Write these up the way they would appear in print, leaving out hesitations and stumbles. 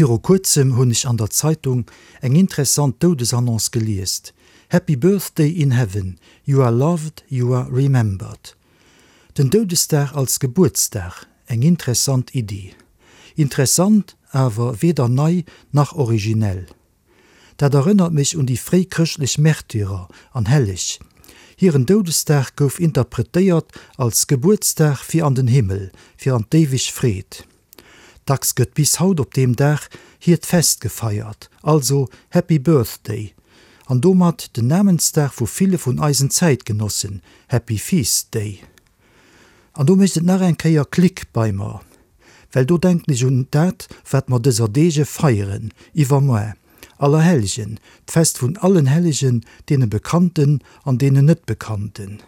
Viru kuerzem hunn ech an der Zeitung eng interessant Doudesannonce geliest, Happy Birthday in Heaven, you are loved, you are remembered. Den Doudesdag als Gebuertsdag, eng interessant Iddi. Interessant, awer weder nei nach originell. Dat erënnert mech un déi fréi chrëschtlech Märtyrer an Helleg. Hiren Doudesdag gouf interpretéiert als Gebuertsdag fir an den Himmel, fir an d'éiweg Freed. Dacks gëtt bis haut op deem Dag hiert Fest gefeiert, also Happy Birthday, an domat den Namensdag vu ville vun eisen Zäitgenossen, Happy Feast Day. An do mécht et nach eng Kéier Klick bei mer, well do denken ech un dat, wat mer dëser Deege feieren, iwwermoar, Allerhellgen, d'Fest vun allen Hellegen, deene Bekannten an deenen Net-Bekannten.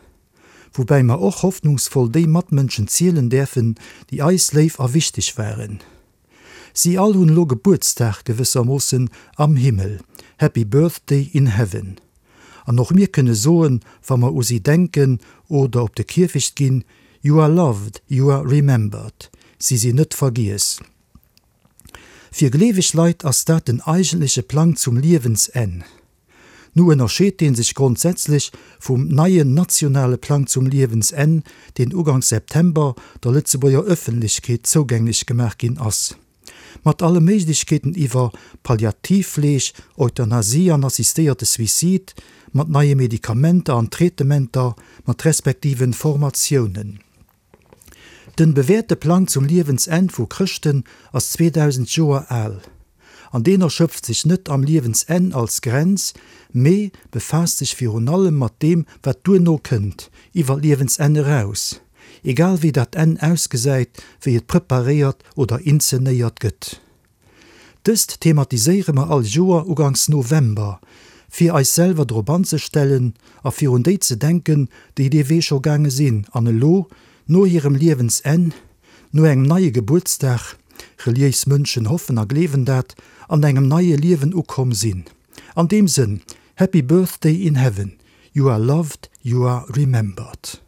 Woubäi mer och hoffnungsvoll déi Matmënschen zielen däerfen, déi eis léif a wichteg waren. Si all hunn elo Gebuertsdag gewëssermoossen am Himmel, Happy Birthday in Heaven. An och mir kënne soen, wa mer u si denken oder op de Kierfecht ginn, You are loved, you are remembered. Si sinn net vergiess. Fir gleeweg Leit ass dat den eigentleche Plang zum Liewensenn. Nu ënnerscheet dee sech grondsätzlech vum neien nationale Plang zum Liewensenn, deen uganks September der Lëtzebuerger Ëffentlechkeet zougänglech gemaach ginn ass. Mat alle Méiglechkeeten iwwer Palliativfleeg, Euthanasie an assistéierte Suicide, mat neie Medikamenter an Traitementer, mat respektiven Formatiounen. Den bewäerte Plang zum Liewensenn vu Chrëschten ass 2000 Joer al. An deen erschöpft sech net am Liewensenn als Grenz, mee befaasst sech virun allem mat deem wat duerno kënnt, iwwer d'Liewensenn eraus, egal wéi dat Enn ausgesäit, wéi et preparéiert oder inzenéiert gëtt. Dëst thematiséiere mer all Joer uganks November, fir eis selwer drop anzestellen a fir un déi ze denken, déi dee Wee scho gaange sinn an elo, no hirem Liewensenn, no engem neie Gebuertsdag, reliéis Mënschen hoffen a gleewen dat, an engem neie Liewen ukomm sinn. An deem Sënn, Happy Birthday in Heaven, you are loved, you are remembered.